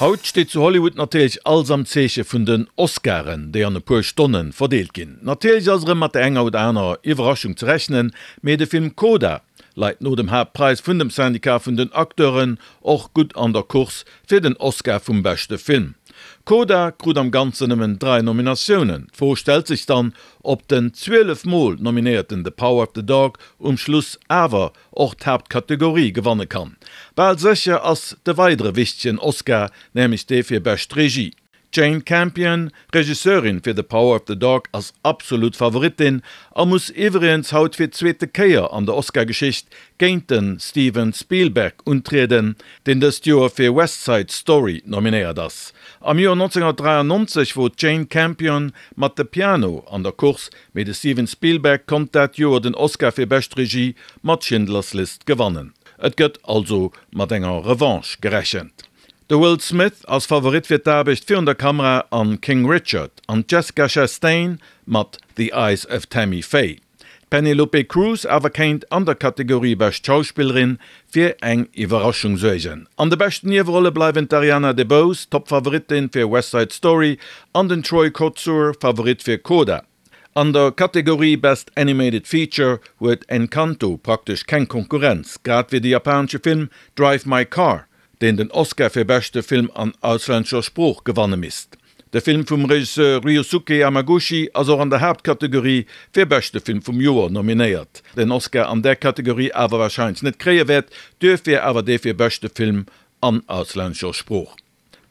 Haut steet zu Hollywood natierlech alles am Zeeche vun den Oscaren, déi an e puer Stonne verdeelt ginn. Natierlech ass erëm mat der enger oder anerer Iwwerraschung ze rechnen, mee de Film Coda leit no dem Haaptpräis vun dem Syndicat vun den Acteuren och gutt an der Course fir den Oscar vum beschte Film. Coda krut am Ganzen nëmmen 3 Nominatiounen. D'Fro stellt sech dann, ob den 12 Mol nominéierten The Power of the Dog um Schluss awer och d'Haaptkategorie gewanne kann. Bal sécher ass de weidere wichtegen Oscar, nämlech dee fir bescht Regie. D'Jane Campion, Regisseurin fir The Power of the Dog, ass absolut Favoritin a muss iwwregens haut fir d'zweete Kéier an der Oscar-Geschicht géint de Steven Spielberg untrieden, deen dëst Joer fir West Side Story nominéiert ass. Am Joer 1993 wor d'Jane Campion mat The Piano an der Course, mee de Steven Spielberg konnt dat Joer den Oscar fir bescht Regie mat Schindler's List gewannen. Et gëtt also mat enger Revanche gerechent. De Will Smith ass Favorit fir d'Aarbecht virun der Kamera an King Richard an d'Jessica Chastain mat The Eyes of Tammy Faye. D'Penelope Cruz awer kéint an der Kategorie Bescht Schauspillerin fir eng Iwwerraschung suergen. An de beschten Niewerolle bleiwen d'Ariana DeBose, Top-Favoritin fir West Side Story, an den Troy Kotsur, Favorit fir Coda. An der Kategorie Best Animated Feature huet Encanto praktesch keng Konkurrenz, grad wéi de japanesche Film Drive My Car, deen den Oscar fir beschte Film an auslännescher Sprooch gewanne misst. De Film vum Regisseur Ryusuke Hamaguchi ass och an der Haaptkategorie fir beschte Film vum Joer nominéiert, den Oscar an där Kategorie awer warscheinlech net kréie wäert, duerfir awer dee fir beschte Film an auslännescher Sprooch.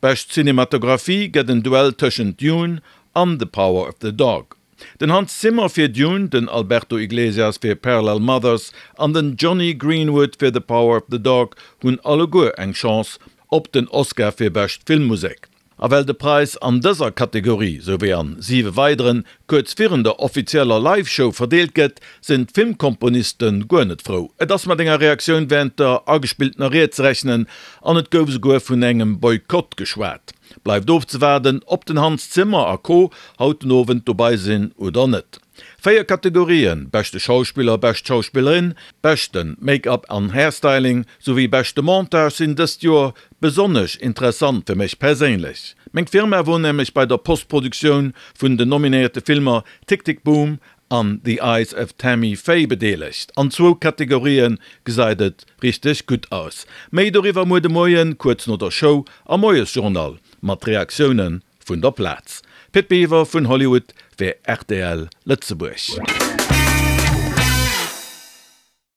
Bescht Cinematographie gëtt en Duell tëschent Dune an The Power of the Dog. Den Hans Zimmer fir Dune, den Alberto Iglesias fir Parallel Mothers an den Jonny Greenwood fir The Power of the Dog hunn alleguer eng Chance op den Oscar fir bescht Filmmusek. A well de Präis an dëser Kategorie, sou wéi an siwe weideren, kuerz virun der offizieller Live-Show verdeelt gëtt, sinn d'Filmkomponiste guer net frou. Et ass mat enger Reaktioun wärend der agespilltener Ried ze rechnen an et gouf esouguer vun engem Boykott geschwat. Bleift ofzewaarden, ob den Hans Zimmer a Co. Haut den Owend dobei sinn oder net. 4 Kategorien, beschte Schauspiller, bescht Schauspillerin, beschte Make-up an Hairstyling souwéi beschte Montage sinn dëst Joer besonnesch interessant fir mech perséinlech. Meng Firma wor nämlech bei der Postproduktioun vun den nominéierte Filmer Tick Tick Boom an The Eyes of Tammy Faye bedeelegt. An zwou Kategorië gesäit et richteg gutt aus. Méi doriwwer muer de Moien kuerz no der Show am Moiesjournal mat Reaktioune vun der Plaz. Pit Biwer vun Hollywood fir rtl Lëtzebuerg.